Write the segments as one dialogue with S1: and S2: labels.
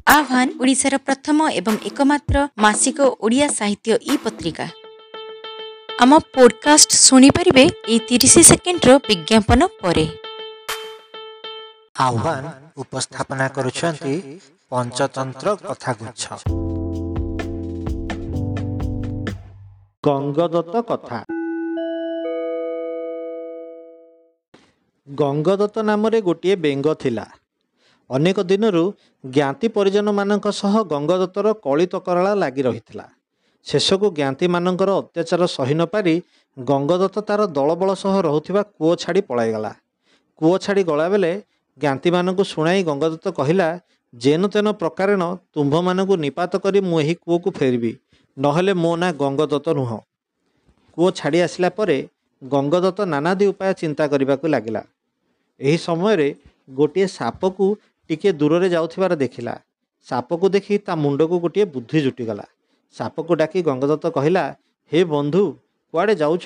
S1: ଆହ୍ୱାନ ଓଡ଼ିଶାର ପ୍ରଥମ ଏବଂ ଏକମାତ୍ର ମାସିକ ଓଡ଼ିଆ ସାହିତ୍ୟ ଇ ପତ୍ରିକା। ଆମ ପୋଡକାଷ୍ଟ ଶୁଣିପାରିବେ ଏଇ 30 ସେକେଣ୍ଡର ବିଜ୍ଞାପନ ପରେ।
S2: ଆହ୍ୱାନ ଉପସ୍ଥାପନା କରୁଛନ୍ତି ପଞ୍ଚତନ୍ତ୍ର କଥାଗୁଚ୍ଛ। ଗଙ୍ଗଦତ୍ତ କଥା। ଗଙ୍ଗଦତ୍ତ ନାମରେ ଗୋଟିଏ ବେଙ୍ଗ ଥିଲା। ଅନେକ ଦିନରୁ ଜ୍ଞାତି ପରିଜନମାନଙ୍କ ସହ ଗଙ୍ଗଦତ୍ତର କଳି ତକରାଳ ଲାଗି ରହିଥିଲା। ଶେଷକୁ ଜ୍ଞାତିମାନଙ୍କର ଅତ୍ୟାଚାର ସହି ନପାରି ଗଙ୍ଗଦତ୍ତ ତାର ଦଳବଳ ସହ ରହୁଥିବା କୂଅ ଛାଡ଼ି ପଳାଇଗଲା। କୂଅ ଛାଡ଼ି ଗଲାବେଳେ ଜ୍ଞାତିମାନଙ୍କୁ ଶୁଣାଇ ଗଙ୍ଗଦତ୍ତ କହିଲା, ଯେନ ତେନ ପ୍ରକାରେଣ ତୁମ୍ଭମାନଙ୍କୁ ନିପାତ କରି ମୁଁ ଏହି କୂଅକୁ ଫେରିବି, ନହେଲେ ମୋ ନାଁ ଗଙ୍ଗଦତ୍ତ ନୁହଁ। କୂଅ ଛାଡ଼ି ଆସିଲା ପରେ ଗଙ୍ଗଦତ୍ତ ନାନାଦି ଉପାୟ ଚିନ୍ତା କରିବାକୁ ଲାଗିଲା। ଏହି ସମୟରେ ଗୋଟିଏ ସାପକୁ ଟିକିଏ ଦୂରରେ ଯାଉଥିବାର ଦେଖିଲା। ସାପକୁ ଦେଖି ତା ମୁଣ୍ଡକୁ ଗୋଟିଏ ବୁଦ୍ଧି ଜୁଟିଗଲା। ସାପକୁ ଡାକି ଗଙ୍ଗଦତ୍ତ କହିଲା, ହେ ବନ୍ଧୁ, କୁଆଡ଼େ ଯାଉଛ?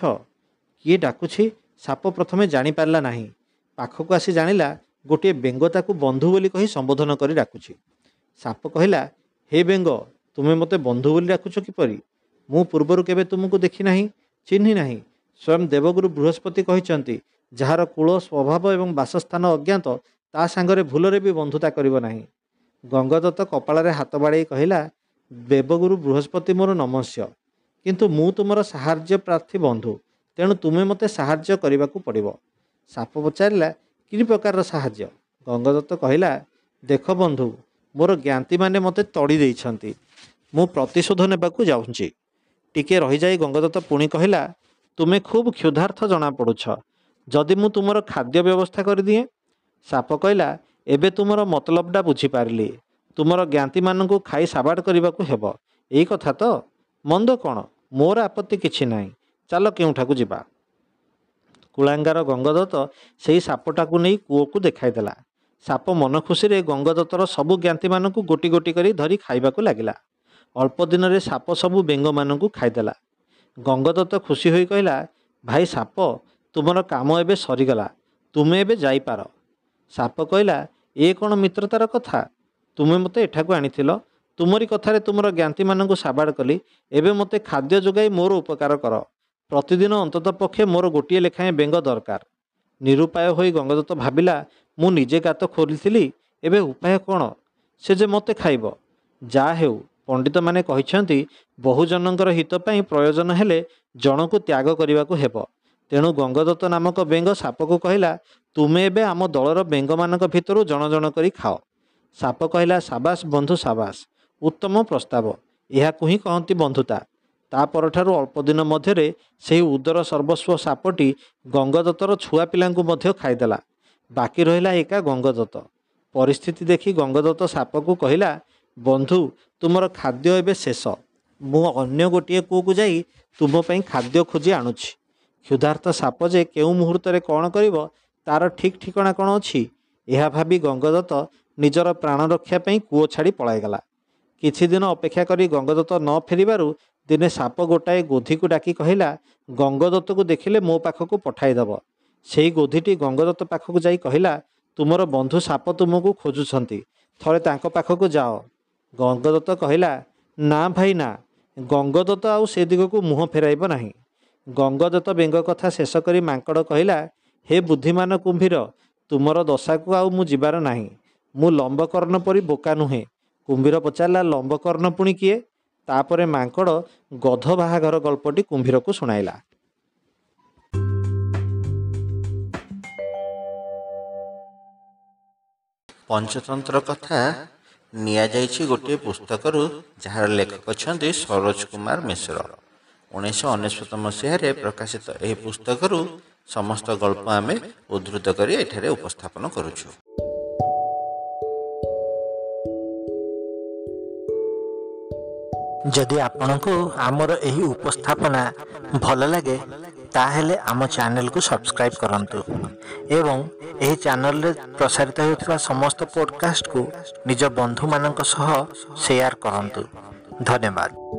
S2: କିଏ ଡାକୁଛି ସାପ ପ୍ରଥମେ ଜାଣିପାରିଲା ନାହିଁ। ପାଖକୁ ଆସି ଜାଣିଲା ଗୋଟିଏ ବେଙ୍ଗ ତାକୁ ବନ୍ଧୁ ବୋଲି କହି ସମ୍ବୋଧନ କରି ଡାକୁଛି। ସାପ କହିଲା, ହେ ବେଙ୍ଗ, ତୁମେ ମୋତେ ବନ୍ଧୁ ବୋଲି ଡାକୁଛ କିପରି? ମୁଁ ପୂର୍ବରୁ କେବେ ତୁମକୁ ଦେଖି ନାହିଁ, ଚିହ୍ନି ନାହିଁ। ସ୍ୱୟଂ ଦେବଗୁରୁ ବୃହସ୍ପତି କହିଛନ୍ତି, ଯାହାର କୂଳ, ସ୍ୱଭାବ ଏବଂ ବାସସ୍ଥାନ ଅଜ୍ଞାତ, ତା ସାଙ୍ଗରେ ଭୁଲରେ ବି ବନ୍ଧୁତା କରିବ ନାହିଁ। ଗଙ୍ଗଦତ୍ତ କପାଳରେ ହାତ ବାଡ଼େଇ କହିଲା, ଦେବଗୁରୁ ବୃହସ୍ପତି ମୋର ନମସ୍ୟ, କିନ୍ତୁ ମୁଁ ତୁମର ସାହାଯ୍ୟ ପ୍ରାର୍ଥୀ ବନ୍ଧୁ, ତେଣୁ ତୁମେ ମୋତେ ସାହାଯ୍ୟ କରିବାକୁ ପଡ଼ିବ। ସାପ ପଚାରିଲା, କି ପ୍ରକାରର ସାହାଯ୍ୟ? ଗଙ୍ଗଦତ୍ତ କହିଲା, ଦେଖ ବନ୍ଧୁ, ମୋର ଜ୍ଞାତିମାନେ ମୋତେ ତଡ଼ି ଦେଇଛନ୍ତି, ମୁଁ ପ୍ରତିଶୋଧ ନେବାକୁ ଯାଉଛି। ଟିକିଏ ରହିଯାଇ ଗଙ୍ଗଦତ୍ତ ପୁଣି କହିଲା, ତୁମେ ଖୁବ୍ କ୍ଷୁଧାର୍ଥ ଜଣାପଡ଼ୁଛ, ଯଦି ମୁଁ ତୁମର ଖାଦ୍ୟ ବ୍ୟବସ୍ଥା କରିଦିଏ? ସାପ କହିଲା, ଏବେ ତୁମର ମତଲବଟା ବୁଝିପାରିଲି, ତୁମର ଜ୍ଞାତିମାନଙ୍କୁ ଖାଇ ସାବାଡ଼ କରିବାକୁ ହେବ, ଏଇ କଥା ତ? ମନ୍ଦ କ'ଣ, ମୋର ଆପତ୍ତି କିଛି ନାହିଁ, ଚାଲ କେଉଁଠାକୁ ଯିବା। କୁଳାଙ୍ଗାର ଗଙ୍ଗଦତ୍ତ ସେଇ ସାପଟାକୁ ନେଇ କୂଅକୁ ଦେଖାଇଦେଲା। ସାପ ମନ ଖୁସିରେ ଗଙ୍ଗଦତ୍ତର ସବୁ ଜ୍ଞାତିମାନଙ୍କୁ ଗୋଟି ଗୋଟି କରି ଧରି ଖାଇବାକୁ ଲାଗିଲା। ଅଳ୍ପ ଦିନରେ ସାପ ସବୁ ବେଙ୍ଗମାନଙ୍କୁ ଖାଇଦେଲା। ଗଙ୍ଗଦତ୍ତ ଖୁସି ହୋଇ କହିଲା, ଭାଇ ସାପ, ତୁମର କାମ ଏବେ ସରିଗଲା, ତୁମେ ଏବେ ଯାଇପାର। ସାପ କହିଲା, ଏ କ'ଣ ମିତ୍ରତାର କଥା? ତୁମେ ମୋତେ ଏଠାକୁ ଆଣିଥିଲ, ତୁମରି କଥାରେ ତୁମର ଜ୍ଞାତିମାନଙ୍କୁ ସାବାଡ଼ କଲି, ଏବେ ମୋତେ ଖାଦ୍ୟ ଯୋଗାଇ ମୋର ଉପକାର କର। ପ୍ରତିଦିନ ଅନ୍ତତଃ ପକ୍ଷେ ମୋର ଗୋଟିଏ ଲେଖାଏଁ ବେଙ୍ଗ ଦରକାର। ନିରୁପାୟ ହୋଇ ଗଙ୍ଗଦତ୍ତ ଭାବିଲା, ମୁଁ ନିଜେ ଗାତ ଖୋଲିଥିଲି, ଏବେ ଉପାୟ କ'ଣ? ସେ ଯେ ମୋତେ ଖାଇବ। ଯାହା ହେଉ, ପଣ୍ଡିତମାନେ କହିଛନ୍ତି ବହୁଜନଙ୍କର ହିତ ପାଇଁ ପ୍ରୟୋଜନ ହେଲେ ଜଣକୁ ତ୍ୟାଗ କରିବାକୁ ହେବ। ତେଣୁ ଗଙ୍ଗଦତ୍ତ ନାମକ ବେଙ୍ଗ ସାପକୁ କହିଲା, ତୁମେ ଏବେ ଆମ ଦଳର ବେଙ୍ଗମାନଙ୍କ ଭିତରୁ ଜଣ ଜଣ କରି ଖାଅ। ସାପ କହିଲା, ସାବାସ ବନ୍ଧୁ, ସାବାସ, ଉତ୍ତମ ପ୍ରସ୍ତାବ, ଏହାକୁ ହିଁ କହନ୍ତି ବନ୍ଧୁତା। ତା ପରଠାରୁ ଅଳ୍ପ ଦିନ ମଧ୍ୟରେ ସେହି ଉଦର ସର୍ବସ୍ୱ ସାପଟି ଗଙ୍ଗଦତ୍ତର ଛୁଆ ପିଲାଙ୍କୁ ମଧ୍ୟ ଖାଇଦେଲା। ବାକି ରହିଲା ଏକା ଗଙ୍ଗଦତ୍ତ। ପରିସ୍ଥିତି ଦେଖି ଗଙ୍ଗଦତ୍ତ ସାପକୁ କହିଲା, ବନ୍ଧୁ, ତୁମର ଖାଦ୍ୟ ଏବେ ଶେଷ, ମୁଁ ଅନ୍ୟ ଗୋଟିଏ କୂଅକୁ ଯାଇ ତୁମ ପାଇଁ ଖାଦ୍ୟ ଖୋଜି ଆଣୁଛି। କ୍ଷୁଧାର୍ତ ସାପ ଯେ କେଉଁ ମୁହୂର୍ତ୍ତରେ କ'ଣ କରିବ ତାର ଠିକ୍ ଠିକଣା କ'ଣ ଅଛି? ଏହା ଭାବି ଗଙ୍ଗଦତ୍ତ ନିଜର ପ୍ରାଣ ରକ୍ଷା ପାଇଁ କୂଅ ଛାଡ଼ି ପଳାଇଗଲା। କିଛି ଦିନ ଅପେକ୍ଷା କରି ଗଙ୍ଗଦତ୍ତ ନ ଫେରିବାରୁ ଦିନେ ସାପ ଗୋଟାଏ ଗୋଧିକୁ ଡାକି କହିଲା, ଗଙ୍ଗଦତ୍ତକୁ ଦେଖିଲେ ମୋ ପାଖକୁ ପଠାଇଦେବ। ସେଇ ଗୋଧିଟି ଗଙ୍ଗଦତ୍ତ ପାଖକୁ ଯାଇ କହିଲା, ତୁମର ବନ୍ଧୁ ସାପ ତୁମକୁ ଖୋଜୁଛନ୍ତି, ଥରେ ତାଙ୍କ ପାଖକୁ ଯାଅ। ଗଙ୍ଗଦତ୍ତ କହିଲା, ନା ଭାଇ ନା, ଗଙ୍ଗଦତ୍ତ ଆଉ ସେ ଦିଗକୁ ମୁହଁ ଫେରାଇବ ନାହିଁ। ଗଙ୍ଗଦତ୍ତ ବେଙ୍ଗ କଥା ଶେଷ କରି ମାଙ୍କଡ଼ କହିଲା, ହେ ବୁଦ୍ଧିମାନ କୁମ୍ଭୀର, ତୁମର ଦଶାକୁ ଆଉ ମୁଁ ଯିବାର ନାହିଁ, ମୁଁ ଲମ୍ବକର୍ଣ୍ଣ ପରି ବୋକା ନୁହେଁ। କୁମ୍ଭୀର ପଚାରିଲା, ଲମ୍ବକର୍ଣ୍ଣ ପୁଣି କିଏ? ତାପରେ ମାଙ୍କଡ଼ ଗଧ ବାହାଘର ଗଳ୍ପଟି କୁମ୍ଭୀରକୁ ଶୁଣାଇଲା।
S3: ପଞ୍ଚତନ୍ତ୍ର କଥା ନିଆଯାଇଛି ଗୋଟିଏ ପୁସ୍ତକରୁ, ଯାହାର ଲେଖକ ଅଛନ୍ତି ସରୋଜ କୁମାର ମିଶ୍ର। 1999 ମସିହାରେ ପ୍ରକାଶିତ ଏହି ପୁସ୍ତକରୁ ସମସ୍ତ ଗଳ୍ପ ଆମେ ଉଦ୍ଧୃତ କରି ଏଠାରେ ଉପସ୍ଥାପନ କରୁଛୁ।
S2: ଯଦି ଆପଣଙ୍କୁ ଆମର ଏହି ଉପସ୍ଥାପନା ଭଲ ଲାଗେ, ତାହେଲେ ଆମ ଚ୍ୟାନେଲକୁ ସବସ୍କ୍ରାଇବ୍ କରନ୍ତୁ ଏବଂ ଏହି ଚ୍ୟାନେଲରେ ପ୍ରସାରିତ ହେଉଥିବା ସମସ୍ତ ପଡ଼କାଷ୍ଟକୁ ନିଜ ବନ୍ଧୁମାନଙ୍କ ସହ ସେୟାର କରନ୍ତୁ। ଧନ୍ୟବାଦ।